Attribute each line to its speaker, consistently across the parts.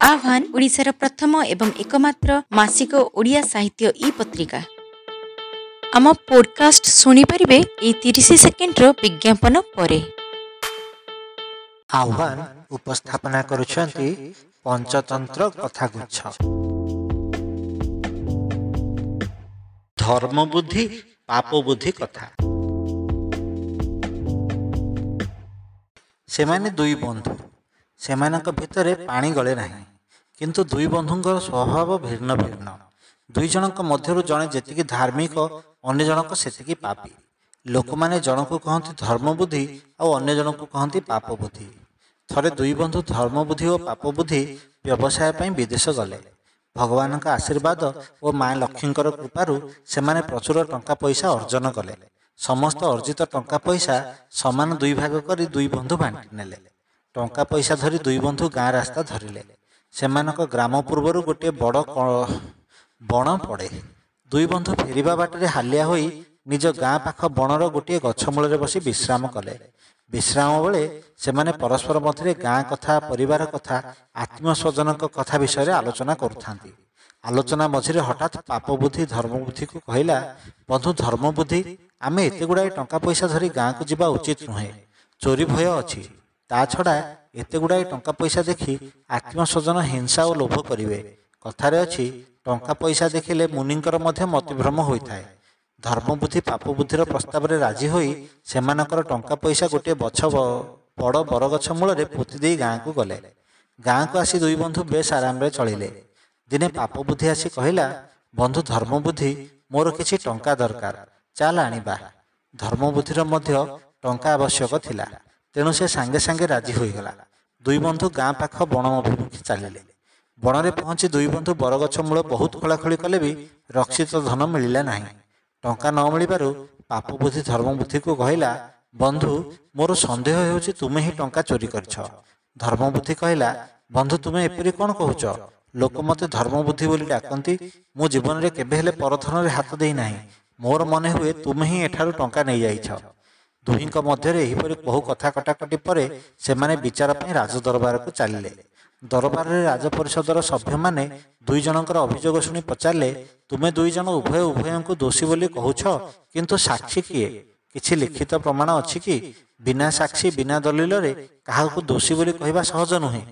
Speaker 1: ଆହ୍ୱାନ ଓଡ଼ିଶାର ପ୍ରଥମ ଏବଂ ଏକମାତ୍ର ମାସିକ ଓଡ଼ିଆ ସାହିତ୍ୟ ଇ ପତ୍ରିକା। ଆମ ପୋଡକାଷ୍ଟ ଶୁଣିପାରିବେ ଏଇ 30 ସେକେଣ୍ଡର ବିଜ୍ଞାପନ ପରେ।
Speaker 2: ଆହ୍ୱାନ ଉପସ୍ଥାପନା କରୁଛନ୍ତି ପଞ୍ଚତନ୍ତ୍ର କଥାଗୁଚ୍ଛ। ଧର୍ମବୁଦ୍ଧି ପାପବୁଦ୍ଧି କଥା। ସେମାନେ ଦୁଇ ବନ୍ଧୁ। ସେମାନଙ୍କ ଭିତରେ ପାଣି ଗଳେ ନାହିଁ। କିନ୍ତୁ ଦୁଇ ବନ୍ଧୁଙ୍କର ସ୍ୱଭାବ ଭିନ୍ନ ଭିନ୍ନ। ଦୁଇ ଜଣଙ୍କ ମଧ୍ୟରୁ ଜଣେ ଯେତିକି ଧାର୍ମିକ, ଅନ୍ୟ ଜଣକ ସେତିକି ପାପୀ। ଲୋକମାନେ ଜଣକୁ କହନ୍ତି ଧର୍ମବୁଦ୍ଧି ଆଉ ଅନ୍ୟ ଜଣକୁ କହନ୍ତି ପାପବୁଦ୍ଧି। ଥରେ ଦୁଇ ବନ୍ଧୁ ଧର୍ମବୁଦ୍ଧି ଓ ପାପବୁଦ୍ଧି ବ୍ୟବସାୟ ପାଇଁ ବିଦେଶ ଗଲେ। ଭଗବାନଙ୍କ ଆଶୀର୍ବାଦ ଓ ମା ଲକ୍ଷ୍ମୀଙ୍କର କୃପାରୁ ସେମାନେ ପ୍ରଚୁର ଟଙ୍କା ପଇସା ଅର୍ଜନ କଲେ। ସମସ୍ତ ଅର୍ଜିତ ଟଙ୍କା ପଇସା ସମାନ ଦୁଇ ଭାଗ କରି ଦୁଇ ବନ୍ଧୁ ବାଣ୍ଟି ନେଲେ। ଟଙ୍କା ପଇସା ଧରି ଦୁଇ ବନ୍ଧୁ ଗାଁ ରାସ୍ତା ଧରିଲେ। ସେମାନଙ୍କ ଗ୍ରାମ ପୂର୍ବରୁ ଗୋଟିଏ ବଡ଼ ବଣ ପଡ଼େ। ଦୁଇ ବନ୍ଧୁ ଫେରିବା ବାଟରେ ହାଲିଆ ହୋଇ ନିଜ ଗାଁ ପାଖ ବଣର ଗୋଟିଏ ଗଛ ମୂଳରେ ବସି ବିଶ୍ରାମ କଲେ। ବିଶ୍ରାମ ବେଳେ ସେମାନେ ପରସ୍ପର ମଧ୍ୟରେ ଗାଁ କଥା, ପରିବାର କଥା, ଆତ୍ମୀୟ ସ୍ୱଜନଙ୍କ କଥା ବିଷୟରେ ଆଲୋଚନା କରୁଥାନ୍ତି। ଆଲୋଚନା ମଝିରେ ହଠାତ୍ ପାପବୁଦ୍ଧି ଧର୍ମବୁଦ୍ଧିକୁ କହିଲା, ବନ୍ଧୁ ଧର୍ମବୁଦ୍ଧି, ଆମେ ଏତେ ଗୁଡ଼ାଏ ଟଙ୍କା ପଇସା ଧରି ଗାଁକୁ ଯିବା ଉଚିତ ନୁହେଁ। ଚୋରି ଭୟ ଅଛି। ତା ଛଡ଼ା ଏତେ ଗୁଡ଼ାଏ ଟଙ୍କା ପଇସା ଦେଖି ଆତ୍ମୀୟ ସ୍ୱଜନ ହିଂସା ଓ ଲୋଭ କରିବେ। କଥାରେ ଅଛି, ଟଙ୍କା ପଇସା ଦେଖିଲେ ମୁନିଙ୍କର ମଧ୍ୟ ମତିଭ୍ରମ ହୋଇଥାଏ। ଧର୍ମବୁଦ୍ଧି ପାପବୁଦ୍ଧିର ପ୍ରସ୍ତାବରେ ରାଜି ହୋଇ ସେମାନଙ୍କର ଟଙ୍କା ପଇସା ଗୋଟିଏ ବଡ଼ ବରଗଛ ମୂଳରେ ପୋତି ଦେଇ ଗାଁକୁ ଗଲେ। ଗାଁକୁ ଆସି ଦୁଇ ବନ୍ଧୁ ବେଶ ଆରାମରେ ଚଳିଲେ। ଦିନେ ପାପବୁଦ୍ଧି ଆସି କହିଲା, ବନ୍ଧୁ ଧର୍ମବୁଦ୍ଧି, ମୋର କିଛି ଟଙ୍କା ଦରକାର, ଚାଲ ଆଣିବା। ଧର୍ମବୁଦ୍ଧିର ମଧ୍ୟ ଟଙ୍କା ଆବଶ୍ୟକ ଥିଲା, ତେଣୁ ସେ ସାଙ୍ଗେ ସାଙ୍ଗେ ରାଜି ହୋଇଗଲା। ଦୁଇ ବନ୍ଧୁ ଗାଁ ପାଖ ବଣ ଅଭିମୁଖେ ଚାଲିଲେ। ବଣରେ ପହଞ୍ଚି ଦୁଇ ବନ୍ଧୁ ବରଗଛ ମୂଳ ବହୁତ ଖୋଳାଖୋଳି କଲେ ବି ରକ୍ଷିତ ଧନ ମିଳିଲା ନାହିଁ। ଟଙ୍କା ନ ମିଳିବାରୁ ପାପବୁଦ୍ଧି ଧର୍ମବୁଦ୍ଧିକୁ କହିଲା, ବନ୍ଧୁ, ମୋର ସନ୍ଦେହ ହେଉଛି ତୁମେ ହିଁ ଟଙ୍କା ଚୋରି କରିଛ। ଧର୍ମବୁଦ୍ଧି କହିଲା, ବନ୍ଧୁ, ତୁମେ ଏପରି କ'ଣ କହୁଛ? ଲୋକ ମୋତେ ଧର୍ମବୁଦ୍ଧି ବୋଲି ଡାକନ୍ତି। ମୁଁ ଜୀବନରେ କେବେ ହେଲେ ପରଧନରେ ହାତ ଦେଇନାହିଁ। ମୋର ମନେ ହୁଏ ତୁମେ ହିଁ ଏଠାରୁ ଟଙ୍କା ନେଇଯାଇଛ। ଦୁହିଁଙ୍କ ମଧ୍ୟରେ ଏହିପରି ବହୁ କଥା କଟାକଟି ପରେ ସେମାନେ ବିଚାର ପାଇଁ ରାଜଦରବାରକୁ ଚାଲିଲେ। ଦରବାରରେ ରାଜପରିଷଦର ସଭ୍ୟମାନେ ଦୁଇ ଜଣଙ୍କର ଅଭିଯୋଗ ଶୁଣି ପଚାରିଲେ, ତୁମେ ଦୁଇ ଜଣ ଉଭୟ ଉଭୟଙ୍କୁ ଦୋଷୀ ବୋଲି କହୁଛ, କିନ୍ତୁ ସାକ୍ଷୀ କିଏ? କିଛି ଲିଖିତ ପ୍ରମାଣ ଅଛି କି? ବିନା ସାକ୍ଷୀ, ବିନା ଦଲିଲରେ କାହାକୁ ଦୋଷୀ ବୋଲି କହିବା ସହଜ ନୁହେଁ।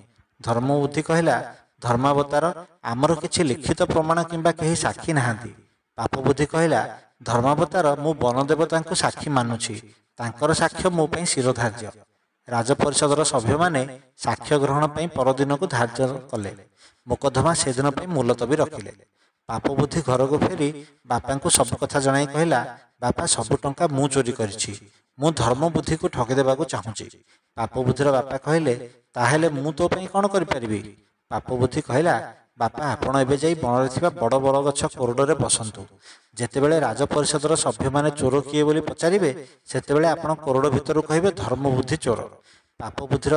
Speaker 2: ଧର୍ମବୁଦ୍ଧି କହିଲା, ଧର୍ମାବତାର, ଆମର କିଛି ଲିଖିତ ପ୍ରମାଣ କିମ୍ବା କେହି ସାକ୍ଷୀ ନାହାନ୍ତି। ପାପବୁଦ୍ଧି କହିଲା, ଧର୍ମାବତାର, ମୁଁ ବନଦେବତାଙ୍କୁ ସାକ୍ଷୀ ମାନୁଛି। ତାଙ୍କର ସାକ୍ଷ୍ୟ ମୋ ପାଇଁ ଶିରୋଧାର୍ଯ୍ୟ। ରାଜପରିଷଦର ସଭ୍ୟମାନେ ସାକ୍ଷ୍ୟ ଗ୍ରହଣ ପାଇଁ ପରଦିନକୁ ଧାର୍ଯ୍ୟ କଲେ। ମୋକଦ୍ଦମା ସେଦିନ ପାଇଁ ମୁଲତବୀ ରଖିଲେ। ପାପବୁଦ୍ଧି ଘରକୁ ଫେରି ବାପାଙ୍କୁ ସବୁ କଥା ଜଣାଇ କହିଲା, ବାପା, ସବୁ ଟଙ୍କା ମୁଁ ଚୋରି କରିଛି। ମୁଁ ଧର୍ମବୁଦ୍ଧିକୁ ଠକିଦେବାକୁ ଚାହୁଁଛି। ପାପବୁଦ୍ଧିର ବାପା କହିଲେ, ତାହେଲେ ମୁଁ ତୋ ପାଇଁ କ'ଣ କରିପାରିବି? ପାପବୁଦ୍ଧି କହିଲା, ବାପା, ଆପଣ ଏବେ ଯାଇ ବଣରେ ଥିବା ବଡ଼ ବରଗଛ କୋରଡ଼ରେ ବସନ୍ତୁ। ଯେତେବେଳେ ରାଜପରିଷଦର ସଭ୍ୟମାନେ ଚୋର କିଏ ବୋଲି ପଚାରିବେ, ସେତେବେଳେ ଆପଣ କୋରଡ଼ ଭିତରୁ କହିବେ ଧର୍ମବୁଦ୍ଧି ଚୋର। ପାପବୁଦ୍ଧିର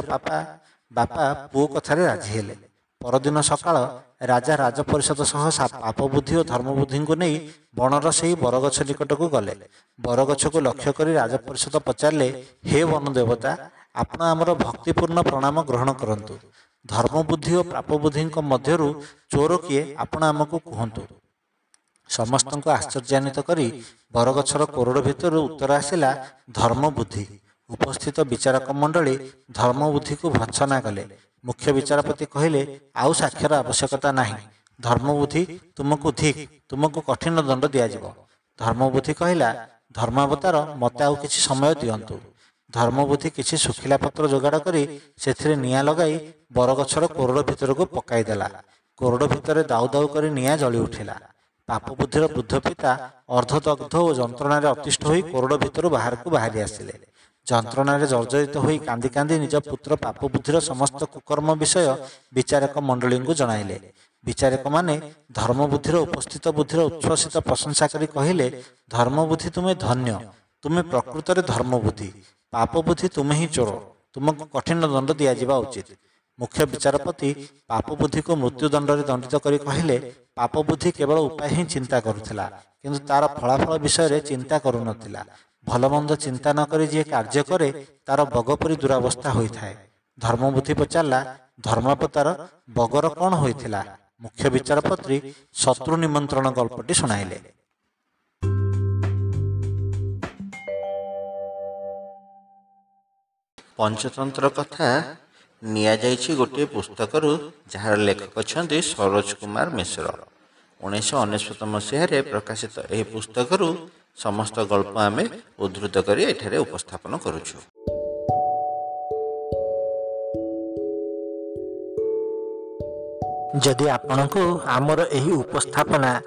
Speaker 2: ବାପା ପୁଅ କଥାରେ ରାଜି ହେଲେ। ପରଦିନ ସକାଳ ରାଜା ରାଜପରିଷଦ ସହ ପାପବୁଦ୍ଧି ଓ ଧର୍ମବୁଦ୍ଧିଙ୍କୁ ନେଇ ବଣର ସେହି ବରଗଛ ନିକଟକୁ ଗଲେ। ବରଗଛକୁ ଲକ୍ଷ୍ୟ କରି ରାଜପରିଷଦ ପଚାରିଲେ, ହେ ବନଦେବତା, ଆପଣ ଆମର ଭକ୍ତିପୂର୍ଣ୍ଣ ପ୍ରଣାମ ଗ୍ରହଣ କରନ୍ତୁ। ଧର୍ମବୁଦ୍ଧି ଓ ପାପବୁଦ୍ଧିଙ୍କ ମଧ୍ୟରୁ ଚୋର କିଏ, ଆପଣ ଆମକୁ କୁହନ୍ତୁ। ସମସ୍ତଙ୍କୁ ଆଶ୍ଚର୍ଯ୍ୟାନ୍ୱିତ କରି ବରଗଛର କୋରଡ଼ ଭିତରୁ ଉତ୍ତର ଆସିଲା, ଧର୍ମବୁଦ୍ଧି। ଉପସ୍ଥିତ ବିଚାରକ ମଣ୍ଡଳୀ ଧର୍ମବୁଦ୍ଧିକୁ ଭର୍ତ୍ସନା କଲେ। ମୁଖ୍ୟ ବିଚାରପତି କହିଲେ, ଆଉ ସାକ୍ଷ୍ୟର ଆବଶ୍ୟକତା ନାହିଁ। ଧର୍ମବୁଦ୍ଧି, ତୁମକୁ ଧିକ୍, ତୁମକୁ କଠିନ ଦଣ୍ଡ ଦିଆଯିବ। ଧର୍ମବୁଦ୍ଧି କହିଲା, ଧର୍ମାବତାର, ମୋତେ ଆଉ କିଛି ସମୟ ଦିଅନ୍ତୁ। ଧର୍ମବୁଦ୍ଧି କିଛି ଶୁଖିଲା ପତ୍ର ଯୋଗାଡ଼ କରି ସେଥିରେ ନିଆଁ ଲଗାଇ ବରଗଛର କୋରଡ଼ ଭିତରକୁ ପକାଇଦେଲା। କୋରଡ଼ ଭିତରେ ଦାଉ ଦାଉ କରି ନିଆଁ ଜଳି ଉଠିଲା। ପାପବୁଦ୍ଧିର ବୃଦ୍ଧ ପିତା ଅର୍ଦ୍ଧଦଗ୍ଧ ଓ ଯନ୍ତ୍ରଣାରେ ଅତିଷ୍ଠ ହୋଇ କୋରଡ଼ ଭିତରୁ ବାହାରକୁ ବାହାରି ଆସିଲେ। ଯନ୍ତ୍ରଣାରେ ଜର୍ଜରିତ ହୋଇ କାନ୍ଦି କାନ୍ଦି ନିଜ ପୁତ୍ର ପାପବୁଦ୍ଧିର ସମସ୍ତ କୁକର୍ମ ବିଷୟ ବିଚାରକ ମଣ୍ଡଳୀଙ୍କୁ ଜଣାଇଲେ। ବିଚାରକମାନେ ଧର୍ମବୁଦ୍ଧିର ଉପସ୍ଥିତ ବୁଦ୍ଧିର ଉଚ୍ଛ୍ୱସିତ ପ୍ରଶଂସା କରି କହିଲେ, ଧର୍ମବୁଦ୍ଧି, ତୁମେ ଧନ୍ୟ। ତୁମେ ପ୍ରକୃତରେ ଧର୍ମବୁଦ୍ଧି। ପାପବୁଦ୍ଧି, ତୁମେ ହିଁ ଚୋର। ତୁମକୁ କଠିନ ଦଣ୍ଡ ଦିଆଯିବା ଉଚିତ। ମୁଖ୍ୟ ବିଚାରପତି ପାପବୁଦ୍ଧିକୁ ମୃତ୍ୟୁଦଣ୍ଡରେ ଦଣ୍ଡିତ କରି କହିଲେ, ପାପବୁଦ୍ଧି କେବଳ ଉପାୟ ହିଁ ଚିନ୍ତା କରୁଥିଲା, କିନ୍ତୁ ତାର ଫଳାଫଳ ବିଷୟରେ ଚିନ୍ତା କରୁନଥିଲା। ଭଲମନ୍ଦ ଚିନ୍ତା ନ କରି ଯିଏ କାର୍ଯ୍ୟ କରେ, ତାର ବଗ ପରି ଦୁରାବସ୍ଥା ହୋଇଥାଏ। ଧର୍ମବୁଦ୍ଧି ପଚାରିଲା, ଧର୍ମାବତାର ବଗର କ'ଣ ହୋଇଥିଲା? ମୁଖ୍ୟ ବିଚାରପତି ଶତ୍ରୁ ନିମନ୍ତ୍ରଣ ଗଳ୍ପଟି ଶୁଣାଇଲେ।
Speaker 3: ପଞ୍ଚତନ୍ତ୍ର କଥା ନିଆଯାଇଛି ଗୋଟିଏ ପୁସ୍ତକରୁ, ଯାହାର ଲେଖକ ଅଛନ୍ତି ସରୋଜ କୁମାର ମିଶ୍ର। 1999 ମସିହାରେ ପ୍ରକାଶିତ ଏହି ପୁସ୍ତକରୁ ସମସ୍ତ ଗଳ୍ପ ଆମେ ଉଦ୍ଧୃତ କରି ଏଠାରେ ଉପସ୍ଥାପନ କରୁଛୁ।
Speaker 2: ଯଦି ଆପଣଙ୍କୁ ଆମର ଏହି ଉପସ୍ଥାପନା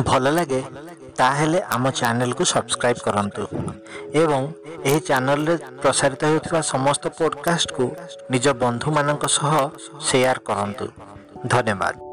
Speaker 2: ଭଲ ଲାଗେ, ତାହେଲେ ଆମ ଚ୍ୟାନେଲକୁ ସବସ୍କ୍ରାଇବ୍ କରନ୍ତୁ ଏବଂ ଏହି ଚ୍ୟାନେଲରେ ପ୍ରସାରିତ ହେଉଥିବା ସମସ୍ତ ପଡ଼କାଷ୍ଟକୁ ନିଜ ବନ୍ଧୁମାନଙ୍କ ସହ ସେୟାର କରନ୍ତୁ। ଧନ୍ୟବାଦ।